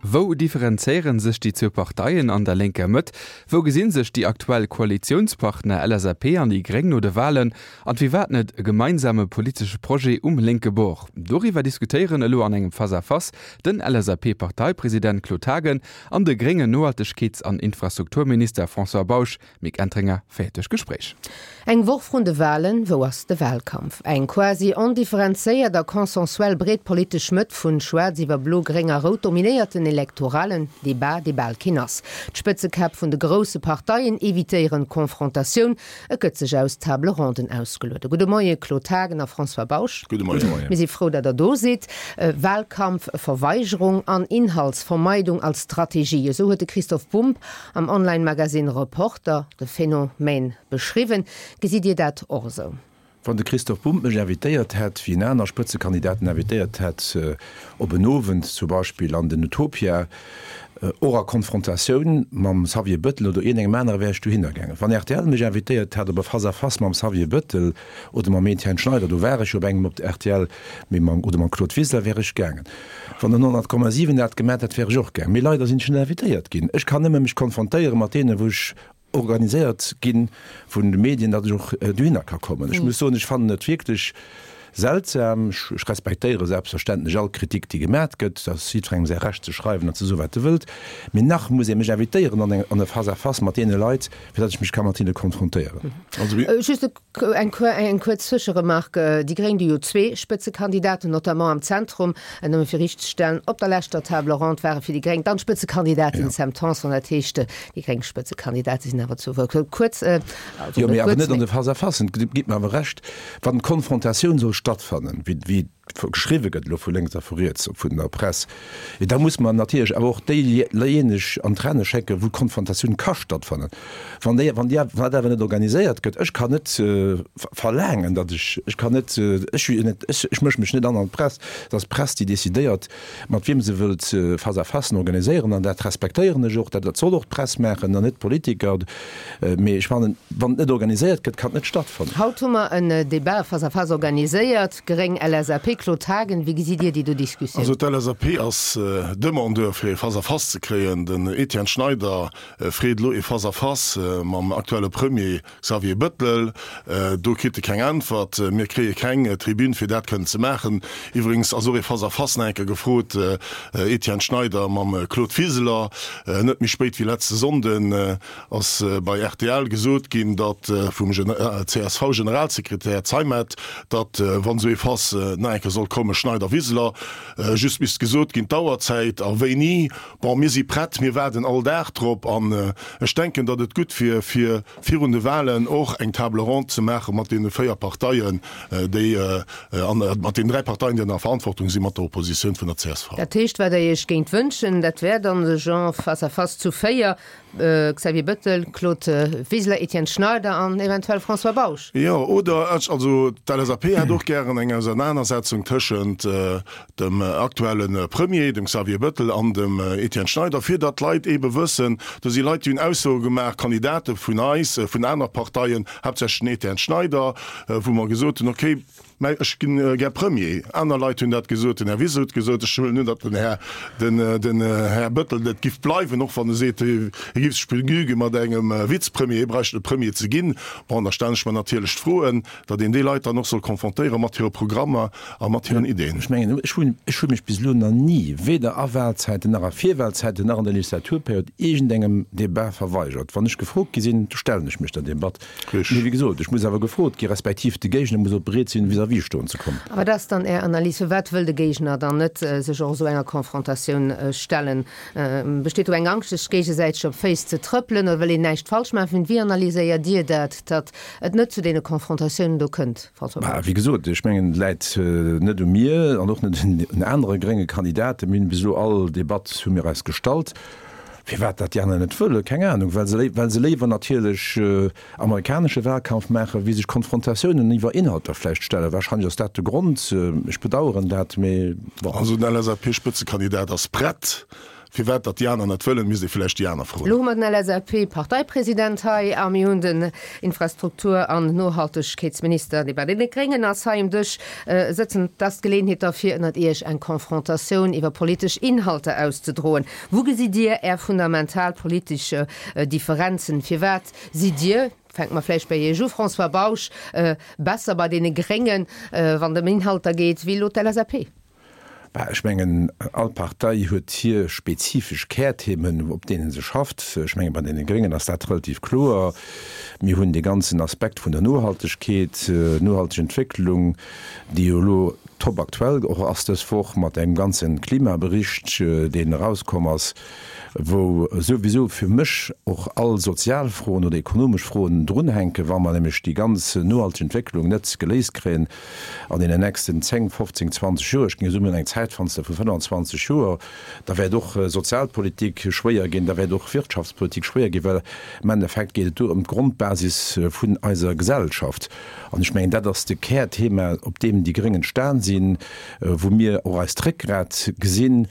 Wou differenzéiere sech déi zwou Parteien an der lénker Mëtt? Wou gesi sech déi aktuell Koalitiounspartner LSAP an déi Gréng no de Walen? An firwat net e gemeinsame politesche Projet um lénke Bord? Doriwwer diskutéieren elo an engem Face-à-Face den LSAP-Parteipresident Claude Haagen an de gréngen Nohaltegkeets an Infrastrukturminister François Bausch. Mick Entringer féiert duerch d'Gespréich. Eng Woch vrun de Walen, wou ass de Wahlkampf? Eng quasi ondifferenzéiert a consensuell breet politesch Mëtt vun Schwaarz iwwer Blo, Gréng a Rout dominéiert den elektoralen Debat, dee bal keen ass. D'Spëtzekäpp vun de grousse Parteien evitéieren d'Konfrontatioun, et gëtt sech aus Table ronden ausgeluede. Gudde Moie Claude Haagen a François Bausch. Gudde Moien. Mir si frou, datt Der do sidd. Wahlkampfverweigerung an Inhaltsvermeidung als Strategie, esou huet de Christoph Bumb Am Online-Magasinn Reporter de Phänomen beschriwwen. Gesitt Dir dat och esou? Wann de Christoph Bumb mech invitéiert hätt, wéi en aner Spëtzekandidaten invitéiert hätt, op en Owend zum Beispill an den Utopia, och a Konfrontatioun mam Xavier Bëttel oder iergendengem anere, wär ech dohinner gaangen. Wann rtl mech invitéiert hätt op e Face-à-face mam Xavier Bëttel oder mam Etienne Schneider, do war ech jo op engem op rtl, mee mam, oder mam Claude Wiseler, wär ech gaangen. Wann den 100,7 dat gemat hätt, wär ech och gaang. Mee leider sinn ech net invitéiert ginn. Ech kann nëmme mech konfrontéiere mat deenen, wou ech organiséiert gi vun de Medien, datt ech och dohinner ka kommen. Ech muss soen, ech fannen et wierklech seltsam. Ech respektéiere selbstverständlech all Kritik, déi gemat gëtt. Dat ass jiddwerengem säi Recht ze schreiwen an ze soen, wat e wëllt. Mee nach muss ee mech invitéieren an eng, an e Face-à-face mat deene Leit, fir datt ech mech ka mat hinne konfrontéieren. Just e Eng kuerz Zwëscheremark, Déi Gréng, déi jo zwee Spëtzekandidaten, notamment am Zentrum, nëmme fir riichtzestellen, op der leschter Table ronde ware fir déi Gréng dann d'Spëtzekandidatin Sam Tanson. Dat heescht, déi gréng Spëtzekandidate sinn awer zu Wuert. Kuerz, also Jo, mee awer net an de Face-à-facen. Gitt mer awer Recht, wann d'Konfrontatioun soll stattfannen, wéi geschriwwe gëtt elo vu lénks a vu riets, vun der Press, da muss mer natierlech awer och déijéineg an d'Renne schécken, wou d'Konfrontatioun ka stattfannen. Wann déi, wann déi, wann dat awer net organiséiert gëtt, ech kann net verlaangen, datt ech, ech kann net, ech hu jo net, ech, ech mësche mech net an an d'Press, et ass d'Press, déi decidéiert, mat wiem se wëllt Face-à-facen organiséieren, an dat respektéieren ech och, dat, dat soll och d'Press maachen an net d'Politiker. Mee ech fannen, wann et net organiséiert gëtt, kann et net stattfannen. Haut hu mer en Débat, e Face-à-face organiséiert, Gréng, LSAP. Claude Haagen, wéi gesitt Dir déi do Diskussioun? Also d'LSAP ass Demandeur fir ee Face-à-face ze kréien. Den Etienne Schneider freet elo ee Face-à-face mam aktuelle Premier Xavier Bëttel, Do kritt e keng Äntwert. Mir kréie keng Tribün, fir dat kënnen ze maachen. Iwwregens ass och ee Face-à-face nach eng Kéier gefrot, Etienne Schneider mam Claude Wiseler. Net méi spéit wéi letzte Sonnden ass bei rtl gesot ginn, datt vum CSV-Generalsekretär Zeimet, datt wann esou ee Face nach eng Kéier sollt kommen, Schneider-Wiseler, just misst gesot ginn d'Auerzäit a wéini. Bon, mir si prett, mir waarden all Dag drop an ech denken, datt et gutt wier, fir virun de Wahlen och eng Table ronde ze maache mat deene 4 Parteien, déi an mat deenen 3 Parteien, déi an der Verantwortung sinn, mat der Oppositioun vun der csv. Dat heescht, wat Der Iech géingt wënschen, dat wär dann de Genre face à face zu 4, Xavier Bettel, Claude Wiseler, Etienne Schneider an eventuell François Bausch. Jo, oder ech, also d'LSAP hätt och gären eng Ausernanersetzung tëschent dem aktuelle Premier, dem Xavier Bettel an dem Etienne Schneider, fir datt d'Leit eebe wëssen, do si Leit, déi hunn Aussoe gemaach, Kandidate vun eis, vun aner Parteien, haaptsächlech den Etienne Schneider, wou mer gesot hunn, okay, mä ech ginn gär Premier. Aner Leit hunn dat gesot, den Här Wiseler huet gesot, ech huelen un, datt den Här, den, den Här Bettel et giff bleiwen, och wann e seet, hie giff sech begnüge mat engem Vizepremier, hie bräicht net Premier ze ginn. Bon, da stellen ech mer natierlech d'Froen, datt een déi Leit dann och soll konfrontéiere mat hire Programmer a mat hiren Ideen. Ech mengen, ech hunn, ech hu mech bis elo nach ni, weder a Wahlzäiten nach a Virwahlzäiten nach an der Legislaturperiod, iergendengem Débat verweigert. Wann ech gefrot gi sinn, da stellen ech mech der Debatt. Mee wéi gesot, ech muss awer gefrot gi respektiv de Géigner muss och bereet sinn, vis-à-vis stoen ze kommen. A wat ass dann Är Analys? Firwat wëll de Géigner dann net sech och esou enger Konfrontatioun stellen? Besteet do eng Angscht, sech géigesäiteg op d'Féiss ze trëppelen oder wëll een näischt falsch maachen? Wéi analyséiert Dir dat, datt et net zu deene Konfrontatiounen do kënnt, François Bausch? Wéi gesot, ech mengen, et läit net u mir an och net un anere grénge Kandidaten. Mir hunn bis elo all Debatt hu mir eis gestallt. Firwat dat déi aner net wëllen, keng Anung. Well se, well se léiwer natierlech amerikanesche Wahlkampf maachen, wéi sech Konfrontatiounen iwwer Inhalter vläicht stellen. Wahrscheinlech ass dat de Grond. Ech bedauern dat, mee bon. Also den LSAP-Spëtzekandidat ass prett. Firwat datt déi aner net wëllen, misst ee villäicht déi aner froen. Elo hu mer den LSAP-Parteipresident hei a mir hunn den Infrastruktur an Nohaltegkeetsminister, dee bei deene Gréngen ass, hei um Dësch sëtzen. Et ass d'Geleeënheet da fir ënnert Iech eng Confrontatioun iwwer politesch Inhalter auszedroen. Wou gesitt Dir Är fundamental politesch Differenzen? Firwat sidd Dir, fänke mer vläicht bei Iech u, François Bausch, besser bei deene Gréngen, wann et ëm Inhalter geet, wéi elo d'LSAP? Bah, ech mengen, all Partei huet hir spezifesch Kärthemen, op deene se schafft. Ech mengen, bei deene Gréngen ass dat relativ kloer. Mir hunn dee ganzen Aspekt vun der Nohaltegkeet, nohalteg Entwécklung, déi jo elo top aktuell och ass dës Woch mat engem ganze Klimabericht, deen erauskomm ass, wou souwisou fir mech och all sozial Froen oder ekonomesch Froen drunhänken, wa mer nämlech déi ganz nohalteg Entwécklung net geléist kréien an deenen nächsten 10, 15, 20 Joer, ech géing soen, mir hunn eng Zäitfenster vu 25 Joer, da wäert och Sozialpolitik schwéier ginn, da wäert och Wirtschaftspolitik schwéier ginn, well am Endeffekt geet et do ëm d'Grondbasis vun eiser Gesellschaft. An ech mengen, dat ass de Kärthema, op deem déi Gréng entstan sinn, wou mir och eist Réckgrat gesinn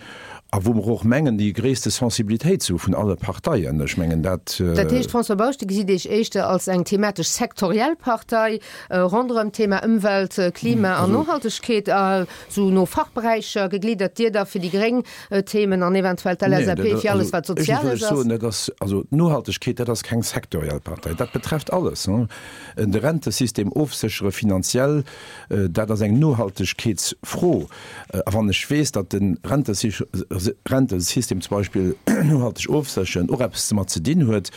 a wou mer och mengen, déi gréisste Sensibilitéit ze hu vun alle Parteien. Ech mengen, dat. Dat heescht, François Bausch, Dir gesitt Iech éischter als eng thematesch sektoriell Partei ronderëm d'Thema Ëmwelt, Klima an Nohaltegkeet, esou no Fachberäicher gegliddert, Dir da fir déi gréng Themen an eventuell d'LSAP fir alles, wat Soziales ass? Dat ass, also d'Nohaltegkeet, dat ass keng sektoriell Partei, dat betrefft alles. De Rentesystem ofséchere finanziell, dat ass eng Nohaltegkeetsfro. A wann ech weess, datt de Rentesystem zum Beispill nohalteg ofsécheren och eppes domat ze dinn huet,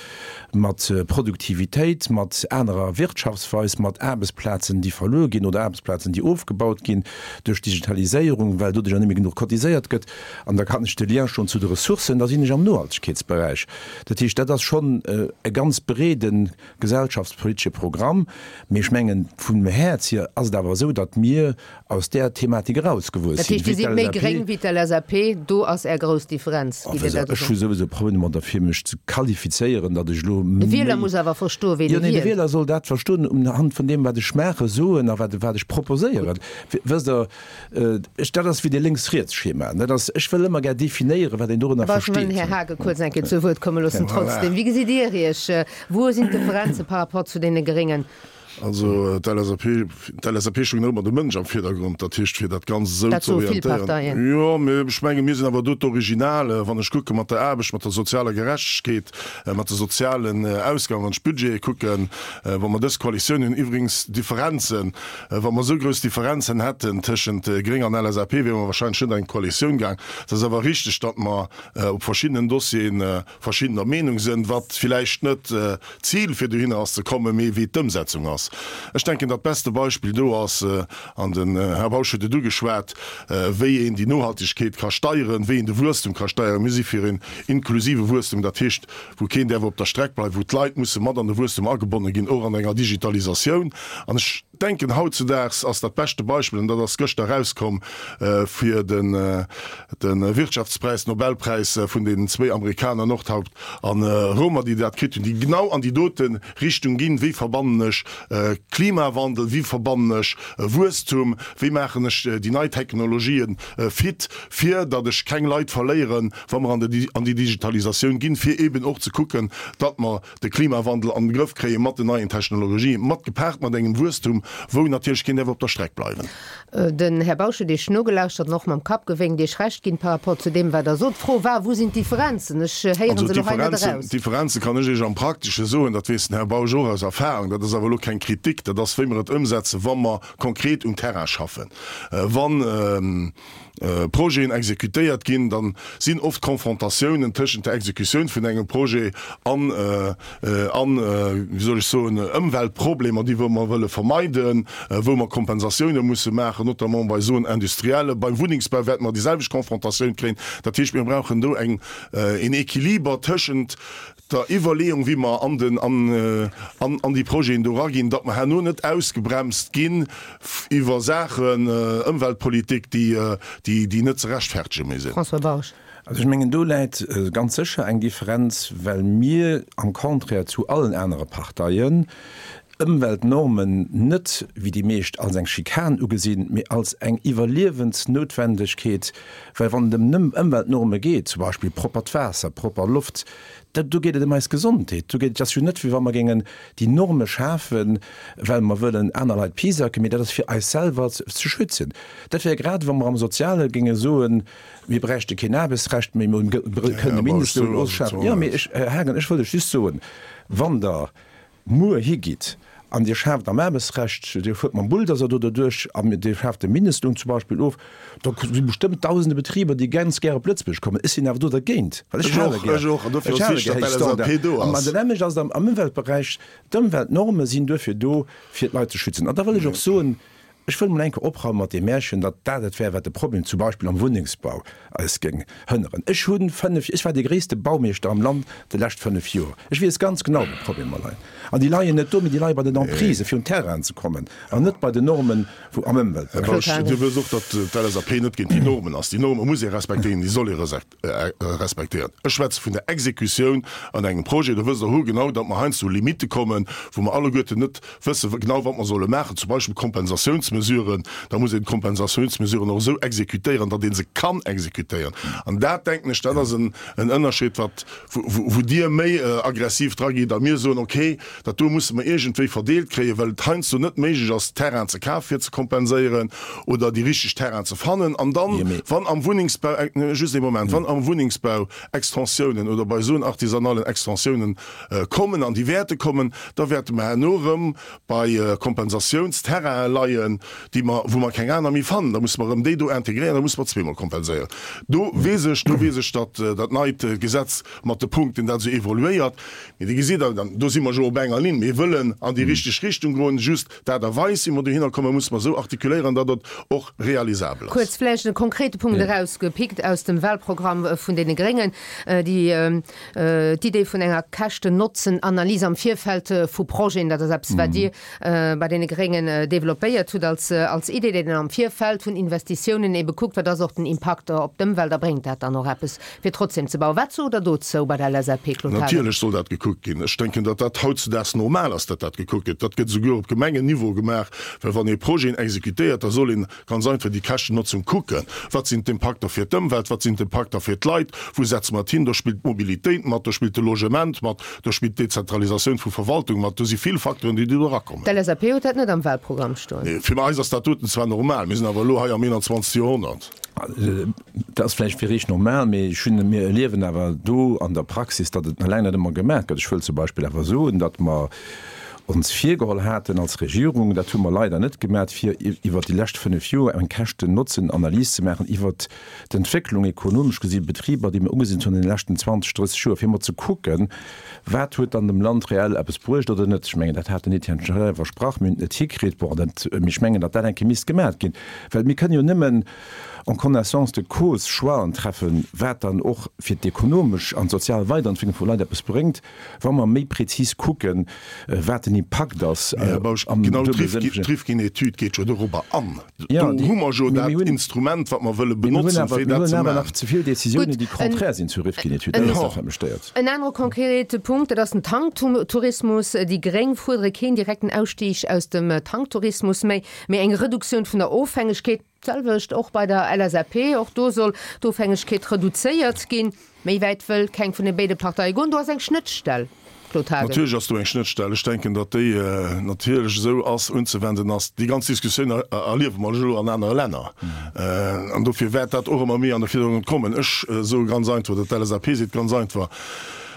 mat Produktivitéit, mat anerer Wirtschaftsweis, mat Aarbechtsplazen, déi verluer ginn oder Aarbechtsplazen, déi ofgebaut ginn duerch d'Digitaliséierung, well doduercher net méi genuch cotiséiert gëtt, an da kann ech de Lien schloen zu de Ressourcen, da sinn ech am Nohaltegkeetsberäich. Dat heescht, dat ass schonn e ganz breede gesellschaftspolitesche Programm. Mee ech mengen, vum Häerz hier ass et awer esou, datt mir aus där Thematik erausgewuess Dat sinn. heescht, Dir sidd méi gréng wéi d'LSAP, do ass Är grouss Differenz, gitt Dir dat Ech hu esou? souwisou Problemer domadder, fir mech ze qualifizéieren, datt ech elo De Wieler méi. muss awer verstoen, ween Jo, e nee, de wielt. Wieler soll dat verstoen unhand vun deem, wat ech maachen, soen a wat, wat ech proposéieren. Wësst Der, ech, dat ass wéi de Lénks-Riets-Schema. Dat ass, ech wëll ëmmer gär definéieren, wat een dorënner Awer ech wëll den versteet. Här Haagen kuerz eng Kéier zu Wuert komme loossen. Trotzdem, wéi gesitt Dir Iech? Wou sinn d'Differenze par rapport zu deene Gréngen? Also d'LSAP, d'LSAP stoung nach ëmmer de Mënsch am Virdergrond, dat heescht fir dat Ganzt esou ze orientéieren. Jo, mee ech menge mir sinn awer do d'Original, wann ech kucke mat der Aarbecht, mat der sozialer Gerechtegkeet, mat de sozialen Ausgaben, wann ech d'Budgete kucken, wa mer dës Koalitioun hunn, iwwregens Differenzen, wa mer esou grouss Differenzen hätten tëschent Gréng an LSAP, wiere mer wahrscheinlech net an eng Koalitioun gaang. Et ass awer richteg, datt mer op verschiddenen Dossieren verschiddener Meenung sënn, wat villäicht net d'Zil fir dohinner ass ze kommen, mee wéi d'Ëmsetzung ass. Ech denken, dat beste Beispill do ass, an den Här Bausch huet et ugeschwat, wéi een déi Nohaltegkeet ka steieren, wéi een de Wuesstum ka steieren. Mir si fir een inklusive Wuesstum, dat heescht, wou keen däerf op der Streck bleiwen, wou d'Leit musse mat an de Wuesstum agebonne ginn, och an enger Digitalisatioun. An ech denken, hautzudaags ass dat beschte Beispill, an dat ass gëschter erauskomm, fir den Wirtschaftspräis, Nobelpräis vun deenen zwéi Amerikaner Noordhaupt a Romer, déi dat kritt hunn, déi genau an déi dote Richtung ginn, Wéi verbannen ech Klimawandel, wéi verbannen ech Wuesstum, wéi maachen ech déi nei Technologien fit, fir datt ech keng Leit verléieren, wa mer an déi Digitalisatioun ginn, fir eeben och ze kucken, datt mer de Klimawandel an den Grëff kréie mat den neien Technologien, mat gepaart mat engem Wuesstum, wou natierlech keen däerf op der Streck bleiwen. Den Här Bausch huet Iech nogelauschtert an och mam Kapp gewénkt, Iech Recht ginn par rapport zu deem, wat Der sot. D'Fro war, Wou sinn d'Differenzen? Ech héiere se elo hei net eraus. D'Differenze kann ech Iech am Praktesche soen, dat weess den Här Bausch och aus Erfahrung, dat ass awer elo keng Kritik, dat ass wéi mer et ëmsetzen, wa mer konkret um Terrain schaffen. Wann. Projeten exekutéiert ginn, da sinn oft Confrontatiounen tëschent der Exekutioun vun engem Projet an, an, wéi soll ech soen, Ëmweltproblemer, déi wou mer wëlle vermeiden, wou mer Kompensatioune musse maachen, notamment bei Zones industrielles. Beim Wunnengsbau wäerte mer déi selwecht Confrontatioun kréien. Dat heescht, mir brauchen do eng, een Équiliber tëschent der Iwwerleeung, wéi mer an den, an, an déi Projeten do eraginn, datt mer herno net ausgebremst ginn iwwer Saachen, Ëmweltpolitik, déi, déi, déi net ze rechtfertege méi sinn. François Bausch. Also ech mengen, do läit ganz sécher eng Differenz, well mir am Contraire zu allen anere Parteien. Ëmweltnormen net, wéi déi meescht, als eng Schikan ugesinn, mee als eng Iwwerliewensnoutwendegkeet, well wann et ëm Ëmweltnorme geet, zum Beispill proppert Waasser, propper Loft, da do geet et ëm eis Gesondheet. Do geet et ass jo net, wéi wa mer géingen déi Norme schafen, well mer wëllen aner Leit pisacken, mee dat ass fir eis selwer ze schützen. Dat wär grad, wa mer am Soziale géinge soen, mir bräichte keen Aarbechtsrecht méi, mir kënnen de Mindestloun ofschafen. Jo, mee ech, Här Haagen, ech wëll lech just soen, wann Der muer higitt an Dir schaaft am Aarbechtsrecht, Dir fuert mam Bulldozer do derduerch an Dir schaaft de Mindestloun zum Beispill of, da si bestëmmt dausende Betriber, déi ganz gär op Lëtzebuerg kommen. Ech sinn awer do dergéint, well ech hale gär, ech hale gär héich Standarden. An dat nämmlecht ass et am Ëmweltberäich. D'Ëmweltnorme sinn duerfir do, fir d'Leit ze schützen. An da wëll ech och soen, Ech wëll mol eng Kéier opraume mat deem Märchen, datt dat et wär, wat de Problem zum Beispill am Wunnengsbau eis géing hënneren. Ech hu 5, ech war dee gréisste Baumeeschter am Land déi lescht 5 Joer. Ech weess ganz genau, wou d'Problemer leien. An déi leien net do, mee déi leie bei den Emprises, fir un Terrainen ze kommen, an net bei den Normen wou am Ëmweltberäich. Här Bausch, Dir wësst och, datt d'LSAP net géint déi Normen ass. Déi Norme muss ee respektéieren, déi soll ee respektéieren. Ech schwätze vun der Exekutioun an engem Projet. Do wësst Der hoergenau, datt mer heiansdo u Limitte kommen, wou mer alleguerten net wësse genau, wat mer solle maachen. Zum Beispill Kompensatiounsmesuren. Da muss een d'Kompensatiounsmesuren och esou exekutéieren, datt ee se kann exekutéieren. An dat, denken ech, dat ass en Ënnerscheed, wat, wou Dir méi aggressiv dragitt a mir soen, okay, Dat do musse mer iergendwéi verdeelt kréien, well et heiansdo net méiglech ass, Terrain ze kafen, fir ze kompenséieren oder déi richteg Terrain ze fannen. An dann, wann am Wunnengsbau, just ee Moment, wann am Wunnengsbau Extensiounen oder bei esou artisanalen Extensiounen kommen, an déi wäerte kommen, da wäerte mer herno erëm bei Kompensatiounsterrainen leien, déi mer, wou mer keng aner méi fannen. Da musse mer erëm déi do integréieren, da musse mer zweemol kompenséieren. Do weess ech, do weess ech, datt dat neit Gesetz mat de Punkten dat esou evoluéiert. Mee Dir gesitt, an do si mer jo op enger Linn, mir wëllen an déi richteg Richtung goen, just d'Aart a Weis, wéi mer dohinner kommen, musse mer esou artikuléieren, datt et och realisabel ass. Kuerz vläicht e konkrete Punkt erausgepickt aus dem Wahlprogramm vun deene Gréngen, déi d'Idee vun enger Käschten-Notzen-Analys am Virfeld vu Projeten. Dat ass eppes, wat Dir bei deene Gréngen developpéiert hutt als als Idee, déi dann am Virfeld vun Investitiounen ebe kuckt, wat ass och den Impakt op d'Ëmwelt a bréngt dat dann och eppes, fir trotzdem ze bauen. Wat sot Der dozou bei der LSAP, Claude Haagen? Natierlech soll dat gekuckt ginn. Ech denken, datt dat hautzedaags normal ass, datt dat gekuckt gëtt. Dat gëtt esouguer op Gemengenniveau gemaach, well wann ee Projeten exekutéiert, da soll een Ganz einfach déi Käschtennotzung kucken. Wat sinn d'Impakter fir d'Ëmwelt? Wat sinn d'Impakter fir d'Leit? Wou setze mer et hin? Do spillt d'Mobilitéit mat, do spillt de Logement mat, do spillt d'Dezentralisatioun vu Verwaltung mat. Do si vill Facteuren, déi do erakommen. D'LSAP huet dat net am Wahlprogramm stoen. Nee, fir eis ass dat doten zwar normal, mir sinn awer elo hei am 21. Joerhonnert. Dat ass vläicht fir Iech normal, mee ech hunn, mir erliewen awer do an der Praxis, datt et nach laang net ëmmer gemaach gëtt. Ech wëll zum Beispill awer soen, datt mer ons virgeholl haten als Regierung, dat hu mer leider net gemat, fir iwwert déi lescht 5 Joer eng Käschten-Notzen-Analys ze maachen iwwert d'Entwécklung ekonomesch gesi Betriber, déi mer ugesinn hunn an deene leschten 20, 30 Joer, fir emol ze kucken, wat huet dann dem Land reell eppes bruecht oder net. Ech mengen, dat hat den Etienne Schneider versprach, mir hunn et net hikritt. Bon, dat, mee ech mengen, datt dat eng Kéier misst gemat ginn, well mir kënnen jo nëmmen en connaissance de cause Choixen treffen, wat dann och fir d'ekonomesch an d'sozial Weiderentwécklung vu Leit eppes bréngt. Wa mer méi prezis kucken, wat den Impakt ass Här Bausch, am genau duebele Sënn vun. D'Rifkin-Etüd geet jo dorobber an. Do hu mer jo dat Instrument, wat mer wëlle benotzen, fir dat ze maachen. Mir hunn awer nach ze vill Décisiounen, déi contraire sinn zur Rifkin-Etüd. Dat ass dat, wat mech stéiert. En anere konkrete Punkt, dat ass den Tanktourismus. Déi Gréng fuerdere keen direkten Ausstieg aus dem Tanktourismus méi, mee eng Reduktioun vun der Ofhängegkeet. D'selwecht och bei der LSAP, och do soll d'Ofhängegkeet reduzéiert ginn. Méi wäit wëll keng vun de béide Parteie goen. Do ass eng Schnëttstell, Claude Haagen. Natierlech ass do eng Schnëttstell. Ech denken, datt déi natierlech esou ass, unzewenden ass. Déi ganz Diskussioun erliewe mer elo an anere Länner. An dofir wäert dat och ëmmer méi an de Virdergrond kommen. Ech soe ganz einfach, oder d'LSAP seet ganz einfach,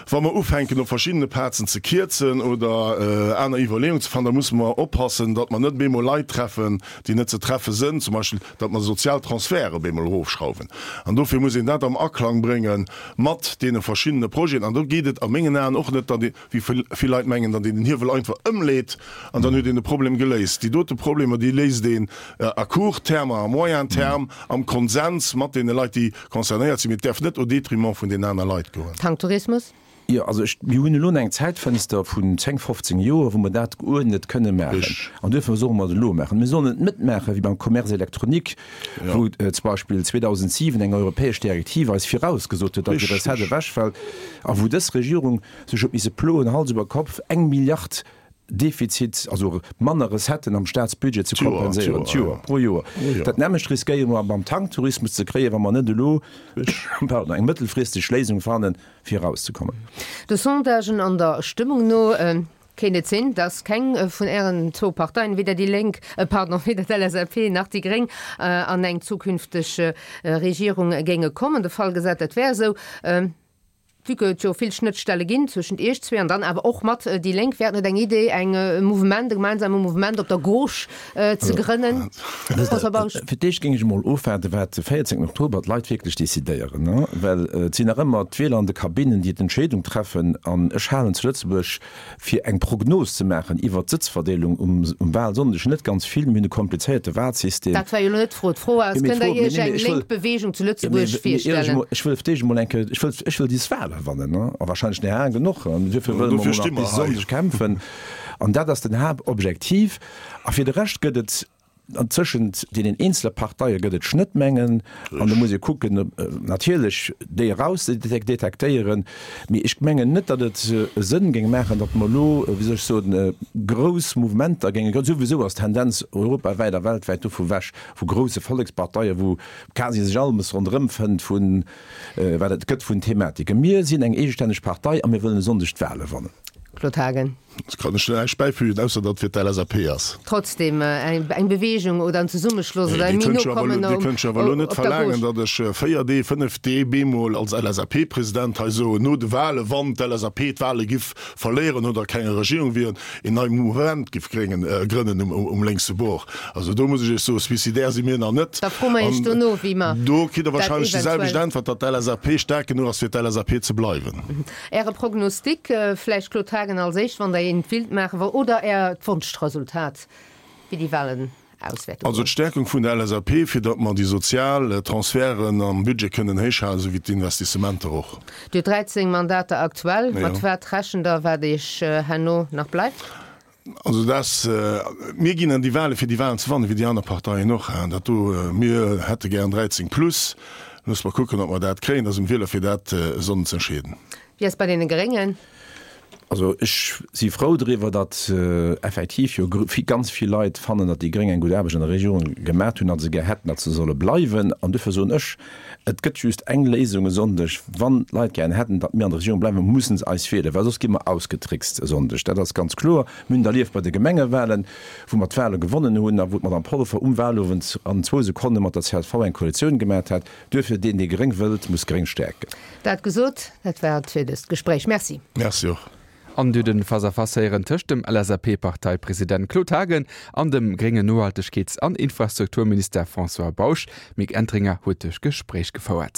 Wa mer ufänken op verschiddene Plazen ze kierzen oder aner Iwwerleeungen ze fannen, da musse mer oppassen, datt mer net op eemol Leit treffen, déi net ze treffe sënn, zum Beispill datt mer sozial Transferte op eemol erofschrauwen. An dofir muss een dat am Aklang brénge mat deene verschiddene Projeten. An do geet et a mengen Aen och net, datt ee, wéi vill Leit mengen, datt een den Hiewel einfach ëmleet an dann huet een de Problem geléist. Déi dote Problemer, déi léist een à court terme a à moyen terme am Konsens mat deene Leit, déi concernéiert sinn. Mee et däerf net au détriment vun den aner Leit goen. Tanktourismus? Jo, also ech, mir hunn elo eng Zäitfënster vun 10, 15 Joer, wou mer dat geuerdnet kënne maachen. An duerfir solle mer et elo maachen. Mir sollen et net maache wéi beim Commerce électronique, wou zum Beispill 2007 eng europäesch Direktiv eis virausgesot huet, datt déi Recette ewechfält, a wou dës Regierung sech huet misse ploen, Hals iwwer Kopf, eng Milliard. Defizit, also manner Recetten am Staatsbudget ze kompenséieren, d'Joer, pro Joer. Dat nämmlecht riskéiere mer beim Tanktourismus ze kréien, wa mer net elo, pardon, eng mëttelfristeg Léisung fannen, fir erauszekommen. De Sondagen an der Stëmmung no kéint et sinn, datt keng vun Ären zwou Parteien, weder déi Lénk, pardon, weder d'LSAP nach déi Gréng, an eng zukünfteg Regierung géinge kommen. De Fall gesat, dat wär esou. Vue que et jo vill Schnëttstelle ginn zwëschent Iech zwee an dann awer och mat déi Lénk, wär et net eng Idee, eng Mouvement, e gemeinsame Mouvement op der Gauche ze grënnen? François Bausch. Fir d'éischt géing ech emol ofwaarden, wat de 14 Oktober d'Leit wierklech decidéieren, well et sinn nach ëmmer d'Wieler an de Kabinnen, déi d'Entscheedung treffen. An ech halen zu Lëtzebuerg fir eng Prognos ze maachen iwwert d'Sëtzverdeelung um Wahlsonndeg net ganz vill. Mir hunn e komplizéierte Wahlsystem. Dat war jo elo net d'Fro. D'Fro ass, Kënnt Der Iech eng lénk Beweegung zu Lëtzebuerg virstellen? Ech wëll fir d'éischt emol eng Kéier, ech wëll, ech wëll dis Wahle wannen, a wahrscheinlech nach laang genuch. An duerfir wëlle mer emol nach bis Sonndeg kämpfen. An dat ass den Haaptobjektiv. A fir de Rescht gëtt et An tëschent deenen eenzele Parteie gëtt et Schnëttmengen an do muss ee kucken, natierlech déi eraus ze detektéieren. Mee ech mengen net, datt et e Sënn géing maachen, datt mer elo, wéi soll ech soen, grouss Mouvementer géinge grënnen. Souwisou ass d'Tendenz europawäit a weltwäit dovu wech, vu grousse Volleksparteien, wou quasi sech alles ronderëm fënnt vu wat et gëtt vun Thematiken. Mir sinn eng eegestänneg Partei a mir wëllen e Sonndeg d'Wale wannen. Claude Haagen. Ech kann ech näischt bäifügen, ausser datt et fir d'LSAP ass. Trotzdem, eng Bewegung oder en Zesummeschloss oder e méi no kommen op der Dir kënnt jo awer elo net verlaangen, datt ech 4 Dee, 5 Dee bemol als LSAP-President hei soen, no de Wahlen, wann d'LSAP d'Wahle giff verléieren oder keng Regierung wieren, een nei Mouvement giff grënnen um lénkse Bord. Also do muss ech Iech soen, suicidaire si mir nach net. Da froe mer Iech dono, wéi mer dat eventuell. Do kritt Der wahrscheinlech déi selwecht Äntwert, datt d'LSAP staark genuch ass, fir d'LSAP ze bleiwen. Äre Prognostic, vläicht Claude Haagen als éischt, wann Der een willt maachen, oder Äert Wonschresultat, wéi déi Wahlen aus wäerte Also goen? d'Stärkung vun der LSAP, fir datt mer déi sozial Transferten am Budget kënnen héichhalen, esou wéi d'Investissementer och. Dir hutt 13 Mandater aktuell. Mat wat rechent Der, wat Iech herno nach bleift? Also dass, mir ginn an déi Wahlen, fir déi Wahlen ze wannen, wéi déi aner Parteien och. Dat do, mir hätte gären 13 plus. Loosse mer kucken, ob mer dat kréien. Dat ass um Wieler, fir dat e Sonnden ze entscheeden. Wéi ass bei deene Gréngen? Also ech si frou driwwer, datt effektiv jo ganz vill Leit fannen, datt déi Gréng eng gutt Aarbecht an der Regierung gemaat hunn a se gär hätten, datt se solle bleiwen. An duerfir soen ech, Et gëtt just eng Léisung e Sonndeg, Wann d'Leit gären hätten, datt mir an der Regierung bleiwen, mussen se eis wielen, well soss gi mer ausgetrickst e Sonndeg. Dat ass ganz kloer. Mir hunn et erlieft bei de Gemengewahlen, wou mer d'Wahle gewonnen hunn a wou d'Madame Polfer um Wahlowend an zwou Sekonne mat der csv eng Koalitioun gemat hat. Duerfir, deen, dee gréng wëllt, muss gréng stäerken. Dat gesot, dat war et fir dëst Gespréich. Merci. Merci och. An du den Face-à-Face héieren tëscht dem LSAP-Parteipresident Claude Haagen an dem gréngen Nohaltegkeets an Infrastrukturminister François Bausch. D'Mick Entringer huet duerch Gespréich gefouert.